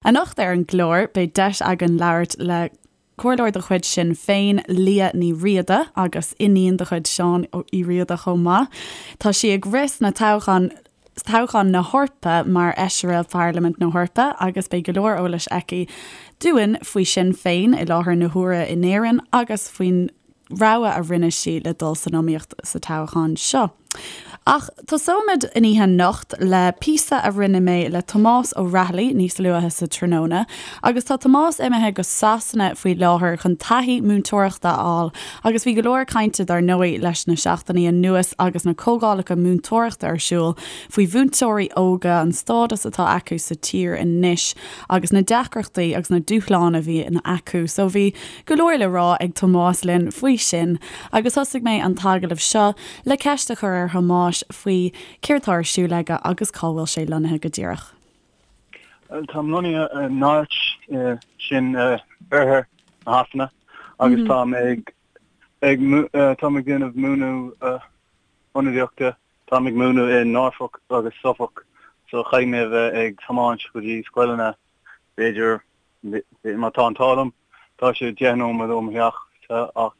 Anocht ar an gclár, beidh deis againn labhairt le Comhairleoir de chuid Sinn Féin, Liadh Ní Riada, agus iníon de chuid Seán Uí Riada chomh maith. Tá sí ag rith sna toghcháin toghchán na hEorpa mar Fheisire Pharlaimint na hEorpa agus beidh go leor eolais aici dúinn faoi Sinn Féin i láthair na huaire in Éirinn agus faoin rogha a rinne sí le dul san iomaíocht sa toghchán seo. Ach tosóimid an oíche anocht le píosa a rinne mé le Tomás Ó Raghallaigh níos luaithe sa tráthnóna agus tá Tomás imithe go Sasana faoi láthair chun taithí múinteoireachta a fháil agus bhí go leor cainte dar ndóigh leis na seachtainí anuas agus na comhdhálacha múinteoireachta ar siúl faoi mhúinteoirí óga, an stádas atá acu sa tír anois agus na deacrachtaí agus na dúshláin a bhíonn acu. So bhí go leor le rá ag Tomás linn faoi sin agus thosaigh mé an t-agallamh seo le ceist a chur ar Thomás faoi céard tá ar siúl aige agus cá bhfuil sé lonnaithe go díreach. Táim lonnaithe i Norwich, sin oirthear na Shasana, agus táim ag ag táim ag déanamh múineadh ionadaíochta. Táim ag múineadh i Norfolk agus Suffolk, so caithfidh mé a bheith ag tiomáint go dtí scoileanna b'fhéidir Má tá an t-ádh liom, tá sé 10 nóiméad ó mo theach ach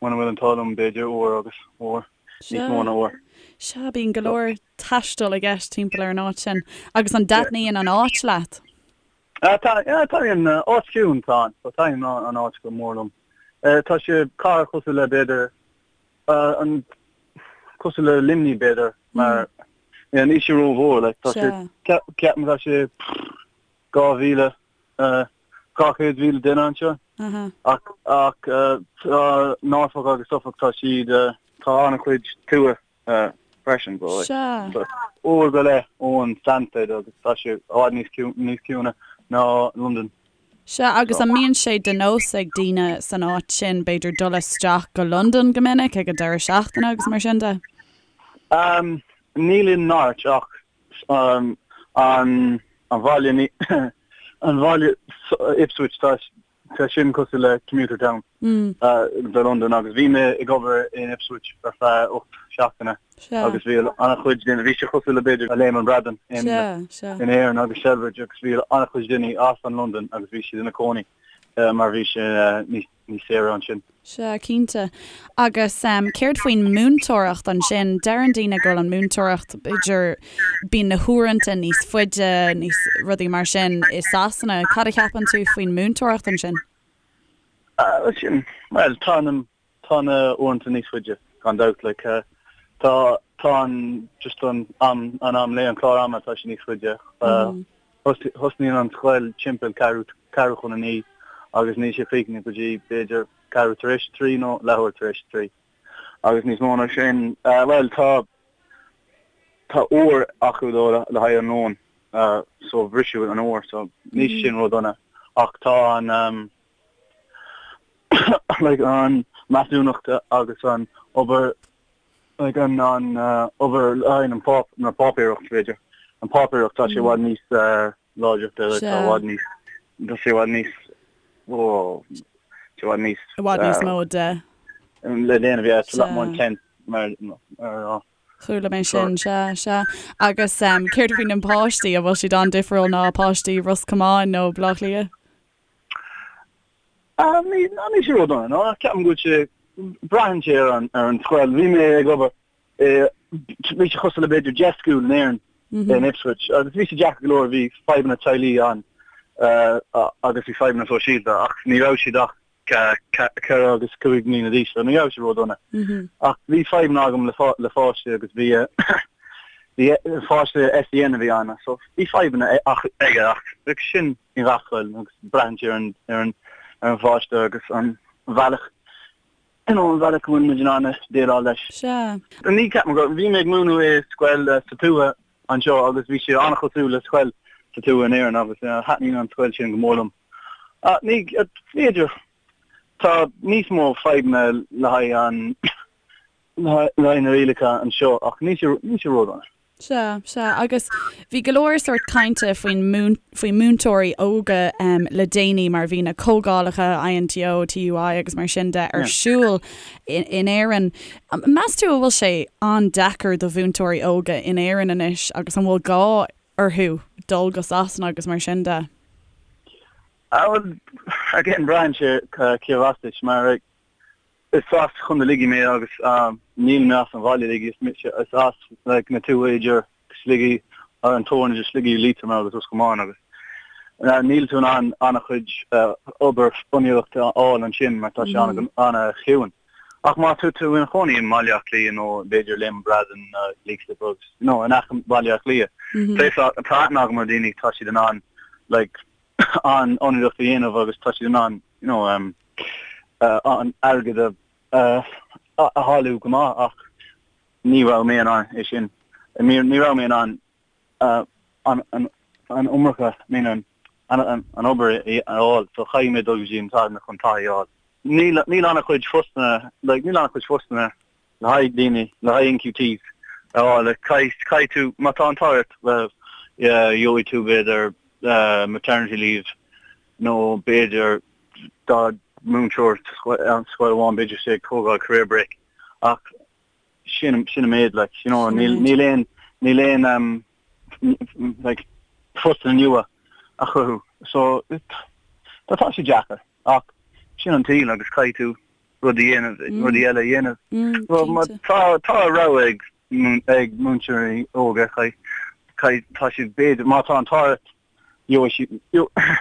muna bhfuil an t-ádh liom, b'fhéidir uair agus uair, níos mó ná uair. Sea, bíonn go leor taistil i gceist timpeall ar an áit sin. Agus an dtaitníonn an áit leat? Taitníonn, áit chiúin atá ann, so taitníonn an áit go mór liom. Tá sé cathair cosúil le b'fhéidir, an cosúil le Luimnigh b'fhéidir, mar níl sé rómhór, like, tá sé, ceapaim tá sé 2,000, 200,000 duine anseo. Ach ach tá Norfolk agus Suffolk tá siad tá an-chuid tuath freisin. Sea. Uair go leith ón Stansted agus tá sé i bhfad níos níos ciúine ná Londain. Sea, agus an mbíonn sé de nós ag daoine san áit sin b'fhéidir dul isteach go Londain go minic ag an deireadh seachtaine agus mar sin de? Níl i Norwich ach an bhaile an bhaile Ipswich tá tá sin cosúil le commuter town do Londain agus bhí mé ag obair in Ipswich ar feadh 8 seachtaine agus bhí an-chuid daoine bhí sé cosúil le b'fhéidir Léim an Bhradáin in in Éirinn agus Celbridge agus bhí an-chuid daoine as an Londain agus bhí siad ina cónaí mar bhí sé níos níos saoire ansin. Sea, cinnte. Agus céard faoin múinteoireacht ansin? Deireann daoine go bhfuil an múinteoireacht, b'fhéidir, bíonn na huaireanta níos faide, níos, rudaí mar sin i Sasana. Cad a cheapann tú faoin múinteoireacht ansin? Sin, bhuel, tá na, tá na uaireanta níos faide, gan dabht, like, tá, tá an, just an am, an am lae, an clár ama, tá sé níos faide. Thosnaíonn an scoil timpeall ceathrú, ceathrú chun a naoi agus níl sé críochnaithe go dtí b'fhéidir ceathrú tar éis a trí nó leathuair tar éis a trí. Agus níos mó ná sin, bhuel tá, tá uair acu dó le haghaidh an lóin so briseadh an uair so níl sé sin ródhona ach tá an like an measúnacht agus an obair like an an obair le haghaidh an páp na páipéireacht b'fhéidir an páipéireacht tá sé i bhfad níos láidre tá i bhfad níos tá sé i bhfad níos ó sé i bhfad níos i bhfad níos mó de le déanamh yeah it's a lot more intense mar mar Chuala mé sin, sea, sea. Agus céard faoi na páistí, an bhfuil siad an-difriúil ná páistí Ros Comáin nó Baile Átha Cliath? Ní ní sé ródhona, no. Ceapaim go bhfuil sé, braitheann sé ar an ar an scoil. Bhí mé ag obair i, bhí sé cosúil le b'fhéidir 10 school in Éirinn, in Ipswich, agus bhí sé deacair go leor, bhí fadhbanna teaghlaigh ann agus bhí fadhbanna sóisialta ach ní raibh siad ach 4 agus 5 mbliana d'aois, so ní raibh sé ródhona. Ach bhí fadhbanna agam le le pháistí agus bhí bhí pháiste SEN a bhí ann, so bhí fadhbanna ach aige ach sin i ngach scoil agus braitheann sé ar an ar an ar an pháiste agus an bhealach you know an bhealach go bhfuil muid in ann déileáil leis. Sea. Ní ceapaim go bhí mé ag múineadh i scoil sa tuath anseo agus bhí sé an-chosúil le scoil sa tuath in Éirinn agus thaitníonn an scoil sin go mór liom. Ní b'fhéidir tá níos mó fadhbanna le haghaidh an le haghaidh na rialacha anseo ach níl sé níl sé ródhona. Sea, sea. Agus bhí go leor sórt cainte faoin faoi múinteoirí óga le déanaí mar bhí na comhdhálacha INTO, TUI agus mar sin de ar siúl in Éirinn. Meas tú an bhfuil sé an-deacair do mhúinteoirí óga in Éirinn anois agus an bhfuil gá orthu dul go Sasana agus mar sin de? Ah bhuel, again, braitheann sé cérbh as duit, mar is as Contae Shligigh mé agus níl mé as an bhaile uilig, is as like na tuaithe idir Sligigh, an teorainn idir Sligigh, Liatroim agus Ros Comáin agus níl tú in ann an-chuid obair fonnadóireachta a fháil ansin mar tá sé an-chiúin. Ach má tá tú ina chónaí i mBaile Átha Cliath nó b'fhéidir Léim an Bhradáin nó Leixlip agus you know in aice Bhaile Átha Cliath, tá aithne agam ar daoine tá siad in ann like an fhonnadóireacht a dhéanamh agus tá siad in ann you know um, an airgead a a thuilleamh go maith ach ní raibh mé in ann é sin. Ní raibh mé in ann an an iomarca, I mean an an obair a fháil so chaithfidh mé dul go dtí an Sasana chun taithí a fháil. Níl níl an-chuid postanna like níl an-chuid postanna le haghaidh daoine, le haghaidh NQTs a fháil. Like caithfidh caithfidh tú, má tá an t-ádh ort, well yeah gheobhaidh tú b'fhéidir maternity leave nó b'fhéidir dá múinteoir sa scoil amháin b'fhéidir sé ag tógáil career break ach sin sin an méid like you know níl níl aon níl aon um, like postanna nua a chruthú so tá tá sé deacair ach sin an tsaol agus caithfidh tú rudaí a dhéanamh mm. rudaí eile a dhéanamh mm, well, má tá tá rogha ag ag múinteoirí óga caithfidh tá siad b'fhéidir má tá an t-ádh ort gheobhaidh siad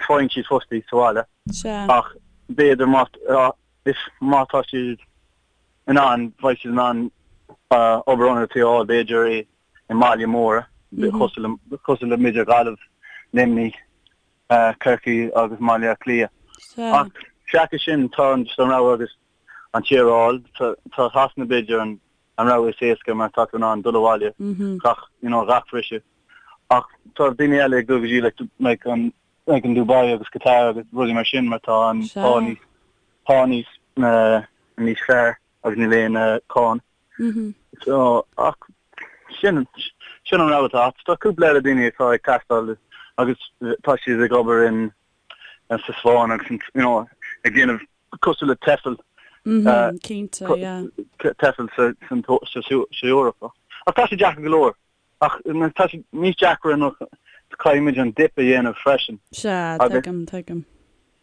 faigheann siad postaí sa bhaile ach b'fhéidir má is má tá siad in ann, beidh siad in ann obair fhonnadóireachta a fháil b'fhéidir i i mbaile móra cosúil le cosúil le b'fhéidir Gaillimh, Luimnigh, Corcaigh agus Baile Átha Cliath. Ach seachas sin tá an just an rogha agus an tír a fháil. Tá tá Sasana b'fhéidir an an rogha is éasca mar tá tú in ann dul abhaile gach you know gach briseadh. Ach tá daoine eile ag dul go dtí like like an like an Dubai agus Qatar agus rudaí mar sin mar tá an pá níos pá níos níos fearr agus níl aon cáin. So ach sin sin an rogha atá agat. Tá cúpla eile daoine atá ag taisteal agus tá siad ag obair in sa Spáinn agus you know ag déanamh cosúil le TEFL Cinnte, yeah. TEFL sa sa sa Eoraip. Ach tá sé deacair go leor. Ach tá sé níos deacra nó caithfimid an dip a dhéanamh freisin. Sea, tuigim, tuigim.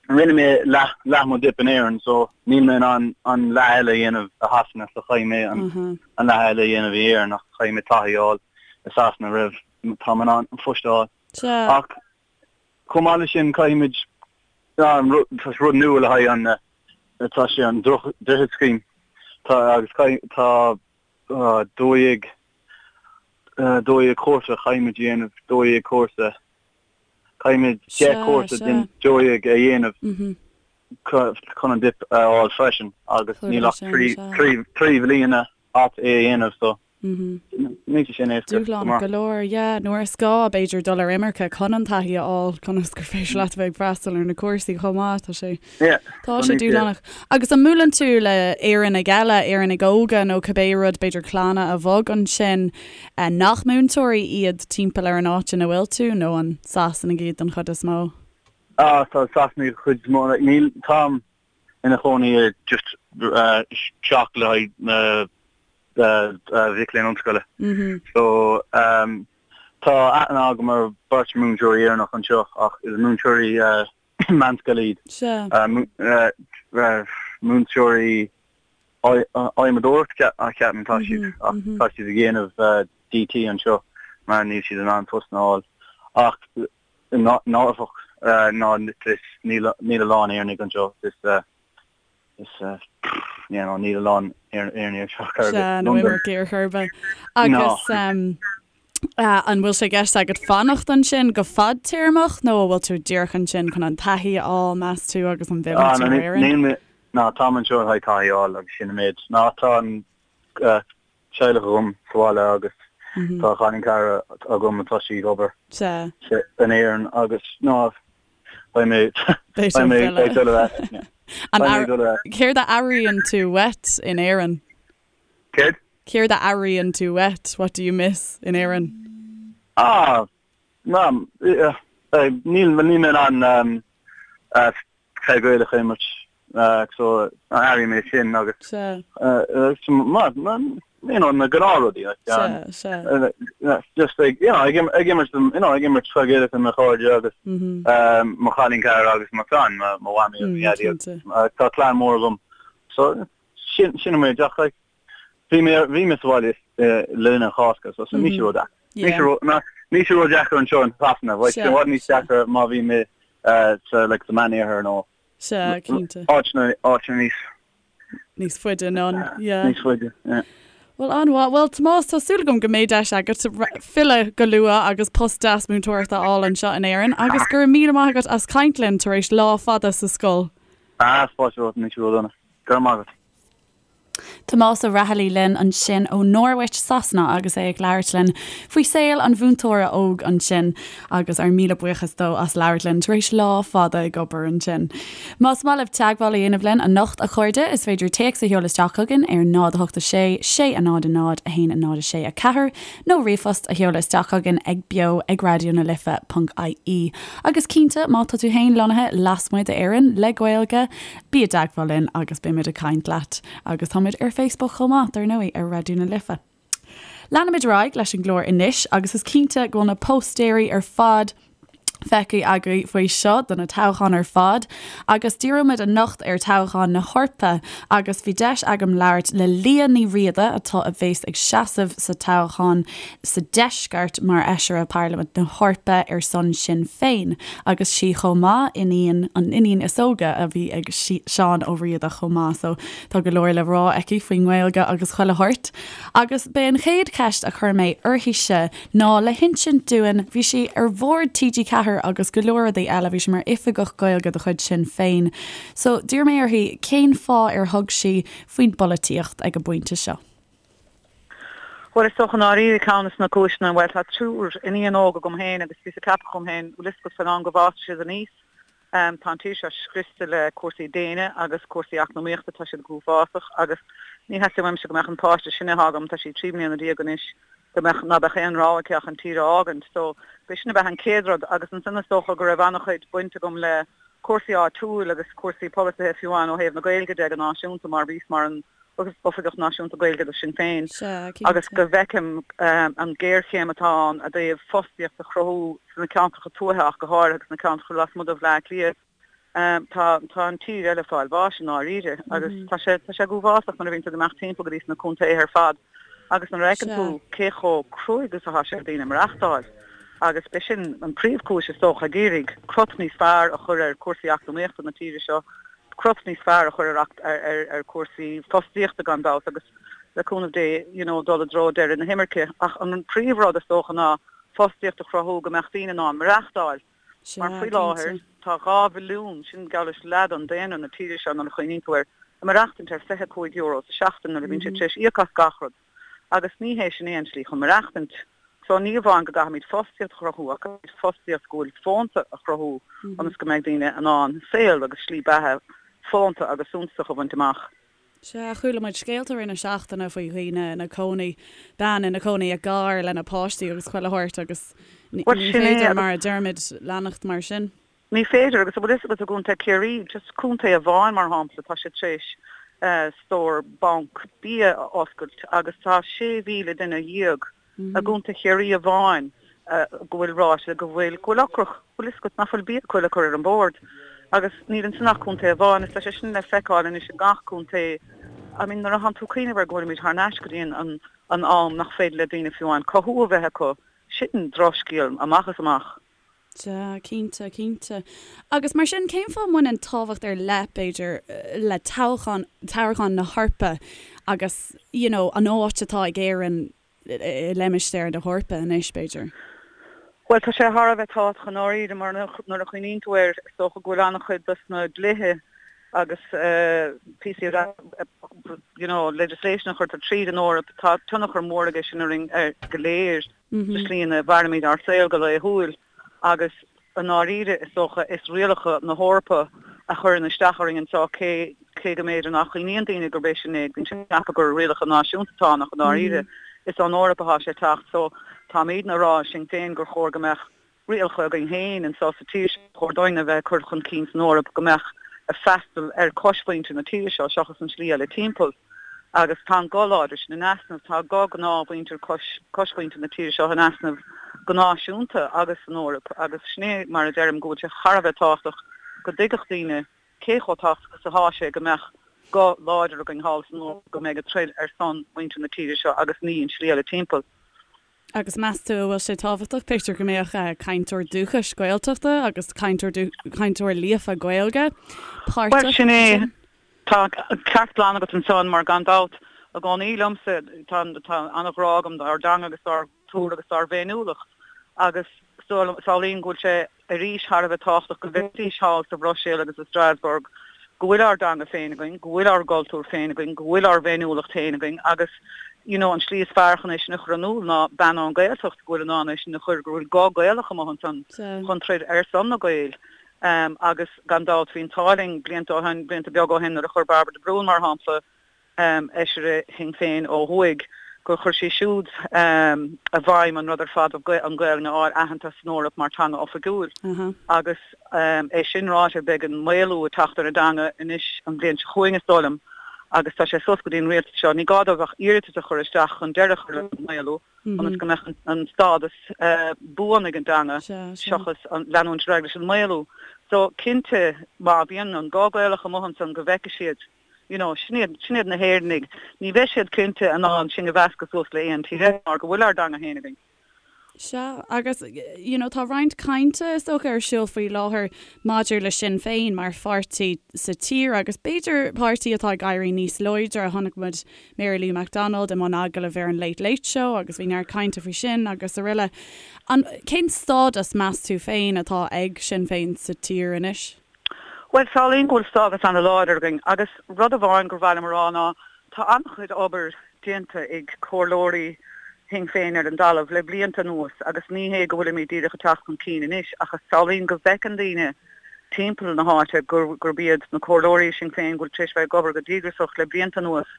Rinne mé leath, leath mo dip in Éirinn so níl mé in ann an leath eile a dhéanamh i Shasana so chaithfidh mé an, an leath eile a dhéanamh i Éirinn ach chaithfidh mé taithí a fháil i Sasana roimh tá mé in ann an phost a fháil. Sea. Ach chomh maith leis sin caithfimid, tá rud nua le haghaidh an, tá sé an Droichead Scheme, tá agus caithfidh, tá 12 12 cúrsa chaithfimid a dhéanamh, 12 cúrsa, caithfimid 10 cúrsa den 12 a dhéanamh chun an dip a fháil freisin agus níl ach 3 bhliana agat é a dhéanamh so níl sé sin éasca. Dúshlánach go leor, yeah. Nuair is gá, b'fhéidir, dul ar imirce chun an taithí a fháil, conas gur féidir leat a bheith ag freastal ar na cúrsaí chomh maith, tá sé. Tá sé dúshlánach. Agus an mbuaileann tú le Éireannaigh eile, Éireannaigh óga nó cibé rud, b'fhéidir clanna a bhog ansin, nach múinteoirí iad timpeall ar an áit ina bhfuil tú, nó an Sasanaigh iad den chuid is mó? Ah, tá Sasanaigh den chuid is mó. Níl, táim ina chónaí i just teach le haghaidh na mhic léinn ollscoile. So, tá aithne agam ar beirt múinteoirí Éireannach anseo ach is múinteoirí meánscoile iad. Sea. Múinteoirí adhmadóireacht ceapaim tá siad ach tá siad ag déanamh DT anseo mar níl siad in ann post a fháil. Ach nárbh ná níl a lán Éireannaigh anseo. Is Is you know níl a lán Éireannaigh anseo chor ar bith. Sea, nó imircigh ar chor ar bith. Agus an bhfuil sé i gceist agat fanacht ansin go fadtéarmach nó an bhfuil tú díreach ansin chun an taithí a fháil, meas tú, agus an bhfillfidh tú ar Éirinn? Níl mé, ná táim anseo le haghaidh taithí a fháil agus sin an méid. Ná tá an teaghlach agam sa bhaile agus tá cailín cara agam atá sí ag obair in Éirinn agus ná beidh mé beidh mé ag dul ar ais. Beidh mé ag dul ar ais. Céard a airíonn tú uait in Éirinn? Céard? Céard a airíonn tú uait, what do you miss, in Éirinn? Ah, ná, níl níl mé in ann peil Gaelach a imirt. So airím é sin agus mar you know na gnáthrudaí like Sea, sea. just like you know ag ag imirt you know ag imirt cluichí Gaelach le mo chairde agus mo chailín cara agus mo chlann, mo mhamaí agus mo dhaidí agus tá clann mór agam so sin sin an méid ach like bhí mé bhí mé sa bhaile le linn an Chásca so so níl sé ró-dheacair. Níl sé ró ná níl sé ró-dheacair anseo in Sasana bheadh sé i bhfad níos deacra má bhí mé sa like sa Meánoirthear nó Sea, cinnte. Áiteanna, áiteanna níos. Níos faide anonn, yeah. Níos faide, yeah. Bhuel, an-mhaith. Bhuel, Tomás, tá súil agam go mbeidh deis agat filleadh go luath agus post deas múinteoireachta a fháil anseo in Éirinn agus go raibh míle maith agat as caint linn tar éis lá fada sa scoil. Ah, fáilte romhat, níl sé ródhona. Go raibh maith agat. Tomás Ó Raghallaigh linn ansin ó Norwich, Sasana agus é ag labhairt linn faoi saol an mhúinteora óg ansin agus ár míle buíochas dó as labhairt linn tar éis lá fada ag obair ansin. Más maith libh teagmháil a dhéanamh linn anocht, a chairde, is féidir téacs a sheoladh isteach chugainn ar 0 8 6 6 0 0 1 0 6 4 nó ríomhphost a sheoladh isteach chugainn ag beo ag raidió na life ponc ie. Agus cinnte, má tá tú féin lonnaithe lasmuigh d'Éirinn le Gaeilge, Bí i dteagmháil linn agus beimid ag caint leat. Agus táimid ar Facebook chomh maith, dar ndóigh, ar Raidió na Life. Leanfaimid ar aghaidh leis an gclár anois agus is cinnte go bhfuil na póstaeirí ar fad feicthe agaibh faoi seo do na toghcháin ar fad agus díreoimid anocht ar toghchán na hEorpa agus bhí deis agam labhairt le Liadh Ní Riada atá a bhéas ag seasamh sa toghchán sa Deisceart mar Fheisire Parlaimint na hEorpa ar son Sinn Féin agus sí chomh maith iníon, an iníon is óige a bhí ag Seán Ó Riada chomh maith so tá go leor le rá aici faoin nGaeilge agus chuile shórt. Agus b'é an chéad cheist a chuir mé uirthise ná le hinsint dúinn, bhí sí ar bhord TG4 agus go leor rudaí eile, bhí sí mar oifigeach Gaeilge de chuid Sinn Féin so d'iarr mé uirthi cén fáth ar thug sí faoin bpolaitíocht ag an bpointe seo. Bhuel, is dócha i ndáiríre ceann de na cúiseanna, bhuel, tá triúr iníon óg agam féin agus bhíos ag ceapadh dhom féin, bhfuil fhios agat, fán am go bhfásfaidh siad aníos, tá an tír seo scriosta le cúrsaí déine agus cúrsaí eacnamaíochta, tá siad go huafásach agus ní theastaíonn uaimse go mbeadh an páiste is sine atá agam, tá sí 13 mbliana anois, go mbeadh, ná beadh aon rogha aici ach an tír a fhágaint. So, b'é sin ab ea an chéad rud agus ansan is dócha go raibh an-chuid baint agam le cúrsaí áitiúil agus cúrsaí polasaithe fiú amháin ó thaobh na Gaeilge de go náisiúnta mar bhíos mar an Oifigeach Náisiúnta Gaeilge do Sinn Féin agus go bhfeicim an ghéarchéim atá ann i dtaobh fostaíocht a chruthú sna ceantracha tuaithe ach go háirithe agus sna ceantracha lasmuigh de Bhleá Cliath. Tá tá an tír eile ag fáil bháis i ndáiríre agus tá sé tá sé go huafásach nuair a bhíonn tú ag imeacht timpeall go dtí sna contaetha ar fad agus nuair a fheiceann tú cé chomh cruaidh is atá sé ar daoine maireachtáil agus b'é sin an príomhchúis is dócha ag iarraidh crot níos fearr a chur ar cúrsaí eacnamaíochta na tíre seo crot níos fearr a chur ar ar chúrsaí fostaíochta gan dabht agus le cúnamh Dé you know dul i dtreo deireadh na himirce. Ach an príomhrud is dócha ná fostaíocht a chruthú go mbeadh daoine in ann maireachtáil. Mar faoi láthair tá 2 mhilliún, sin geall leis leath den daonra na tíre seo nuair a chuimhníonn tú air, ag maireachtaint ar €25 sa seachtain nuair a bhíonn siad tar éis íoc as gach rud. Agus ní hé sin é an tslí chun maireachtaint. So ní amháin go gcaithfimid fostaíocht a chruthú ach caithfimid fostaíocht go bhfuil fónta a chruthú ionas go mbeidh daoine in ann saol agus slí beatha fónta agus suntasach a bhaint amach. Sea, chuala muid scéalta i rith na seachtaine faoi dhaoine ina cónaí, bean ina cónaí i gcarr lena páistí agus chuile shórt agus ní féidir, mar a deirimid, leanacht mar sin. Ní féidir, agus an bhfuil fhios agat i gContae Chiarraí, just contae amháin mar shampla, tá siad tar éis stór banc bia a oscailt agus tá 16,000 duine i gContae Chiarraí amháin go bhfuil ráite go bhfuil, go bhfuil ocrach, bhfuil fhios agat, nach bhfuil bia acu le cur ar an bord. Agus níl ansin ach contae amháin, agus tá sé sin le feiceáil anois i ngach contae. I mean nuair atánn tú ag cuimhneamh air go bhfuilimid thar n-ais go dtí an an am nach féidir le daoine fiú amháin cothú a bheith acu, sin drochscéal amach is amach. Sea, cinnte, cinnte. Agus mar sin, cén fáth a mbaineann tábhacht ar leith, b'fhéidir, le toghchán, toghchán na hEorpa agus, you know, an áit atá ag Éirinn i limistéar na hEorpa anois, b'fhéidir? Bhuel, tá sé thar a bheith tábhachtach i ndáiríre mar nuair a chuimhníonn tú air, is dócha go bhfuil an-chuid dos na dlíthe agus píosaí you know, legislation a chuirtear tríd an Eoraip, tá tionchar mór aige sin orainn go léir. sa slí ina mhairimid ár saol go laethúil agus i ndáiríre is dócha is rialacha na hEorpa a chuireann isteach orainn anseo cé cé go mb'fhéidir nach gcuimhníonn daoine gurb é sin é, bíonn siad ag ceapadh gur rialacha náisiúnta atá ann ach i ndáiríre is ón Eoraip atá sé ag teacht so táimidne ag rá i Sinn Féin gur chóir go mbeadh rialacha againn féin anseo sa tír seo, ba chóir dúinn a bheith ag cur chun cinn san Eoraip go mbeadh. ag freastal ar choismhuintir na tíre seo seachas an slí eile timpeall. Agus tá an guth láidir sin in easnamh, tá guth gnáthmhuintir coismhuintir na tíre seo in easnamh go náisiúnta agus san Eoraip agus sin é mar a deirim go bhfuil sé thar a bheith tábhachtach go dtuigfeadh daoine cé chomh tábhachtach is atá sé go mbeadh guth láidir againn thall san Eoraip go mbeidh ag troid ar son mhuintir na tíre seo agus ní an slí eile timpeall. Agus meas tú an bhfuil sé tábhachtach, b'fhéidir, go mbeadh cainteoir dúchais Gaeltachta agus cainteoir cainteoir líofa Gaeilge páirteach Bhuel, sin é. Tá ceart glan agat ansan mar gan dabht, i gcónaí liomsa, tá tá an-ghrá agam dár dteanga agus dár gcultúr agus dár bhféiniúlacht agus samhlaím go bhfuil sé arís thar a bheith tábhachtach go bhfeicfidís thall sa Bhruiséil agus i Strasbourg go bhfuil ár dteanga féin againn, go bhfuil ár gcultúr féin againn, go bhfuil ár bhféiniúlacht féin againn agus you know an slí is fearr chun é sin a chur in iúl ná bean ón Ghaeltacht go bhfuil in ann é sin a chur, go bhfuil guth Gaelach amuigh ansan chun troid ar son na Gaeil. Agus gan dabht bhí an t-ádh linn blianta ó shin, blianta beaga ó shin nuair a chuir Bairbre de Brún mar shampla, Fheisire Shinn Féin ó thuaidh, gur chuir sí siúd i bhfeidhm an rud ar fad an Ghaelainn a fháil aitheanta san Eoraip mar teanga oifigiúil. Agus é sin ráite, beidh an maolú ag teacht ar an dteanga anois an bhliain seo chugainn, is dóigh liom, agus tá sé suas go dtí an rialtas seo. Ní gá dóibh ach iarratas a chur isteach chun deireadh a chur leis an maolú, ionas go mbeadh an stádas buan ag an dteanga seachas leanúint ar aghaidh leis an maolú. So, cinnte, má bhíonn an guth Gaelach amuigh ansan go bhfeicfidh siad, You know, sin iad, sin iad na hÉireannaigh. Ní bheidh siad cinnte in ann sinn a mheascadh suas le aon tír eile mar go bhfuil ár dteanga féin againn. Sea, agus, you know, tá roinnt cainte, is dócha, ar siúl faoi láthair maidir le Sinn Féin mar pháirtí sa tír agus b'fhéidir páirtí atá ag éirí níos láidre. Chonaic muid Mary Lou McDonald i mbun agallaimh ar an Late Late Show agus bhí neart cainte faoi sin agus araile. An, cén stádas, meas tú féin, atá ag Sinn Féin sa tír anois? Bhuel, samhlaím go bhfuil stádas an-láidir againn agus rud amháin gur mhaith liom a rá ná tá an-chuid obair déanta ag comhairleoirí Shinn Féin ar an dtalamh le blianta anuas agus ní hé go bhfuilimid díreach ag teacht chun cinn anois ach samhlaím go bhfeiceann daoine timpeall na háite gurb iad na comhairleoirí Sinn Féin go bhfuil tar éis bheith ag obair go díograsach le blianta anuas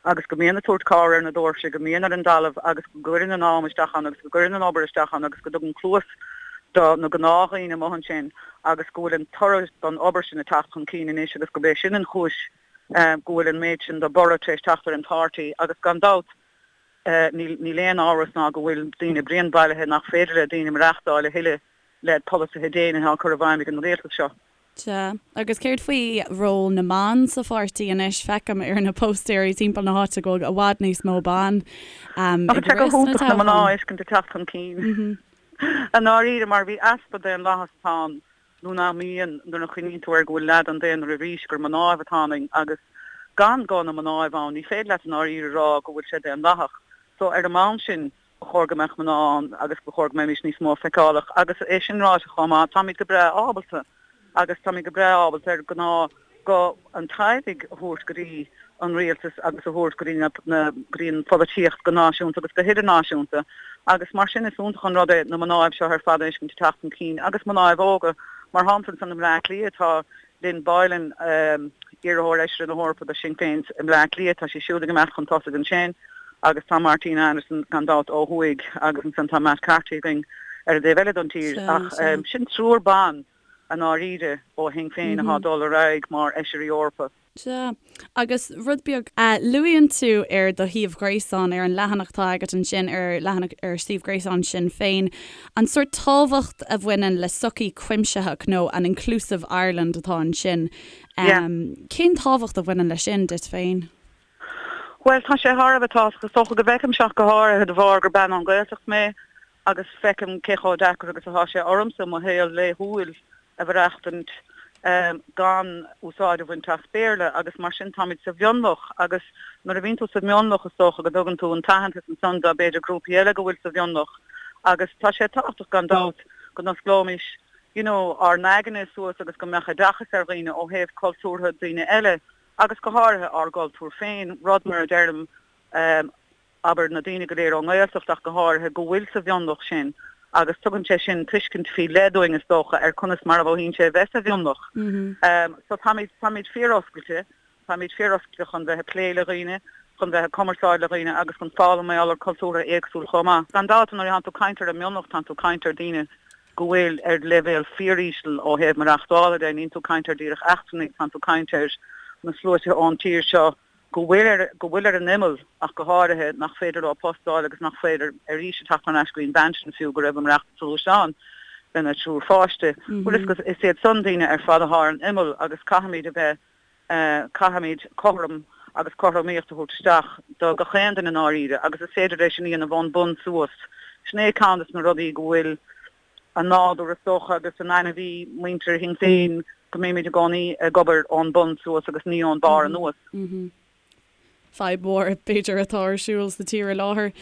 agus go mbíonn ag tabhairt cabhair ar na doirse, go mbíonn ar an dtalamh agus go gcuireann an am isteach ann agus go gcuireann an obair isteach ann agus go dtugann cluas do na gnáthdhaoine amuigh ansin agus go bhfuil an toradh don obair sin ag teacht chun cinn anois agus gurb é sin an chúis go bhfuil an méid sin de borradh tar éis teacht ar an pháirtí agus gan dabht níl aon amhras ná go bhfuil daoine bréan bailithe nach féidir le daoine maireachtáil a thuilleadh le polasaithe déine atá á cur i bhfeidhm ag an rialtas seo. Sea. Agus céard faoi ról na mban sa pháirtí anois? Feicim ar na póstaeirí timpeall na háite go bhfuil i bhfad níos mó ban ag rith sna toghcháin. na mná a fheiscint ag teacht chun cinn. I ndáiríre, mar bhí easpa daonlathas atá ann, nó nach mbíonn, nuair a chuimhníonn tú air go bhfuil leath den daonra arís gur mnáibh atá ionainn agus gan guth na mnáibh ann, ní féidir leat i ndáiríre a rá go bhfuil sé daonlathach. So ar an mbonn sin, Ba chóir go mbeadh mná ann agus ba chóir go mbeimis níos mó feiceálach. Agus é sin ráite chomh maith, táimid go breá ábalta agus táimid go breá ábalta ar gnáth guth an teaghlaigh a thabhairt go dtí an rialtas agus a thabhairt go dtí na go dtí an pholaitíocht go náisiúnta agus go hidirnáisiúnta. Agus mar sin is iontach an rud é na mnáibh seo ar fad a fheiscint ag teacht chun cinn agus mnáibh óga. Mar shampla ansan i mBleá Cliath tá Lynn Boylan, iarrthóir Fheisire na hEorpa do Shinn Féin i mBleá Cliath, tá sí siúd ag imeacht chun tosaigh ansin agus tá Martina Anderson gan dabht ó thuaidh agus ansan tá Matt Carthy againn ar an dtaobh eile don tír. Ach sin triúr ban i ndáiríre ó Shinn Féin atá ag dul ar aghaidh mar Fheisirí Eorpa. Sea. Agus rud beag, luaíonn tú ar do shuíomh gréasáin, ar an leathanach atá agat ansin, ar leathanach ar suíomh gréasáin Sinn Féin, an sórt tábhacht a bhaineann le sochaí cuimsitheach nó an inclusive Ireland atá ansin. Cén tábhacht a bhaineann leis sin duit féin? Bhuel, tá sé thar a bheith tábhachtach. Is dócha go bhfeicim seo go háirithe de bharr gur bean ón Ghaeltacht mé agus feicim cé chomh deacair agus atá sé ormsa mo shaol laethúil a mhaireachtaint gan úsáid a bhaint as Béarla agus mar sin táimid sa mhionlach agus nuair a bhíonn tú sa mhionlach is dócha go dtugann tú an t-aitheantas ansan do b'fhéidir grúpaí eile go bhfuil sa mhionlach agus tá sé tábhachtach gan dabht go n-osclóimis you know ár n-aigne suas agus go mbeadh oideachas ar dhaoine ó thaobh cultúrtha daoine eile agus go háirithe ár gcultúr féin, rud mar a deirim abair, na daoine go léir ón nGaeltacht ach go háirithe, go bhfuil sa mhionlach sin agus tugann sé sin tuiscint faoi leith dúinn is dócha ar conas mar a mhothaíonn sé a bheith sa mhionlach. So táimid, táimid fíor-oscailte, táimid fíor-oscailte chun bheith ag plé le dhaoine, chun bheith ag cumarsáid le dhaoine agus chun foghlaim mar gheall ar cultúrtha éagsúil chomh maith. Gan dabht nuair atánn tú ag caint ar an mionlach tánn tú ag caint ar daoine. go bhfuil ar leibhéal fíoríseal ó thaobh maireachtála de, níl tú ag caint ar díreach eachtrannaigh, tánn tú ag caint ar na sluaite ón tír seo go bhfuil ar, go bhfuil ar an imeall ach go háirithe, nach féidir leo post a fháil agus nach féidir arís a teacht thar n-ais go dtí an bhean sin fiú go raibh ag maireachtáil sa ghluaisteán lena triúr pháiste. Bhuel is, is iad san daoine ar fad athá ar an imeall agus caithfimid a bheith Caithfimid cothrom agus cothromaíocht a thabhairt isteach do gach aon duine i ndáiríre agus is féidir é sin a dhéanamh ón bun suas. Sin é ceann des na rudaí go bhfuil i nádúr is dócha agus in ainmhí muintir Shinn Féin go mbímid i gcónaí ag obair ón bun suas agus ní ón barr anuas. Fadhb mhór, b'fhéidir, atá ar siúl sa tír i láthair,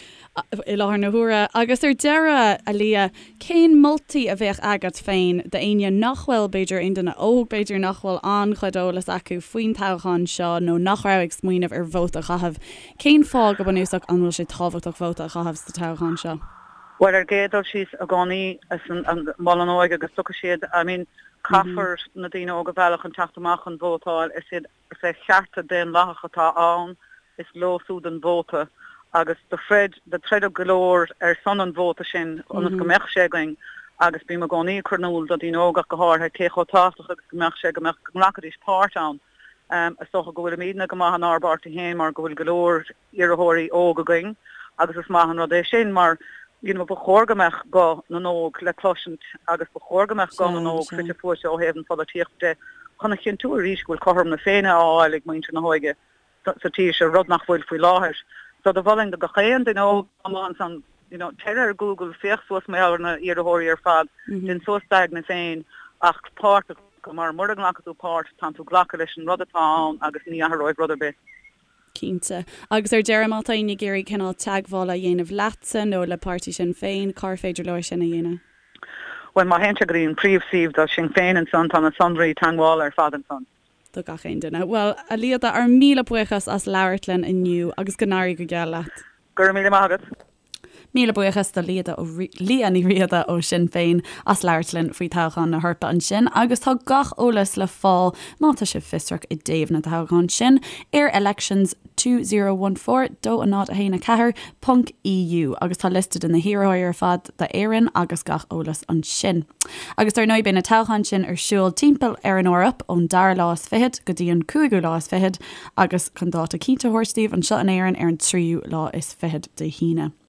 i láthair na huaire. Agus ar deireadh, a Liadh, cén moltaí a bheadh agat féin d'éinne nach bhfuil, b'fhéidir, aon duine óg, b'fhéidir, nach bhfuil an-chuid eolas acu faoin toghchán seo nó nach raibh ag smaoineamh ar vóta a chaitheamh? Cén fáth, go bunúsach, an bhfuil sé tábhachtach vóta a chaitheamh sa toghchán seo? Bhuel, ar an gcéad dul síos, i gcónaí, is an mol an óige agus tiocfaidh siad, I mean, caithfear na daoine óga a mhealladh chun teacht amach chun vótáil, is iad Is é cearta daonlathach atá ann, is leo siúd an vóta agus do throid, do troideadh go leor ar son an vóta sin ionas go mbeadh sé againn agus bím i gcónaí ag cur in iúl do daoine óga ach go háirithe cé chomh tábhachtach agus go mbeadh sé go mbeadh, go nglacfaidís páirt ann. Is dócha go bhfuilimidne go maith inár bpáirtí féin mar go bhfuil go leor iarrthóirí óg againn agus is maith an rud é sin mar you know ba chóir go mbeadh guth na n-óg le cloisint agus ba chóir go mbeadh guth na n-óg fite fuaite ó thaobh an pholaitíochta de chun a chinntiú arís go bhfuil cothrom na Féinne á fháil ag muintir na hóige sa tír seo, rud nach bhfuil faoi láthair. So do mholfainn do gach aon duine óg amuigh ansan you know téir ar Google, féach suas mar gheall ar na iarrthóirí ar fad, déan suas d'aigne féin ach páirt a ghlacadh mar mura nglacfaidh tú páirt tánn tú ag glacadh leis an rud atá ann agus ní athróidh rud ar bith. Cinnte. Agus ar deireadh, má tá éinne ag iarraidh cineál teagmhála a dhéanamh leatsa nó le páirtí Sinn Féin, cár féidir leo é sin a dhéanamh? Bhuel, má théann siad go dtí an príomhshuíomh do Sinn Féin ansan, tá na sonraí teagmhála ar fad ansan. Do gach aon duine. Bhuel, a Liada, ár míle buíochas as labhairt linn inniu agus go n-éirí go geal leat. Go raibh míle maith agat. Míle buíochas do Liadh Ní Riada ó Sinn Féin as labhairt linn faoi toghchán na hEorpa ansin agus tá gach eolas le fáil, má tá sibh fiosrach i dtaobh na dtoghchán sin, ar elections 2014 2 0 1 4 ponc EU agus tá liosta de na hiarrthóirí ar fad d'Éirinn agus gach eolas ansin. Agus dar ndóigh beidh na toghcháin sin ar siúl timpeall ar an Eoraip ón dara lá is fichead go dtí an cúigiú lá is fichead agus chun dáta cinnte a thabhairt daoibh anseo in Éirinn ar an tríú lá is fichead Dé hAoine.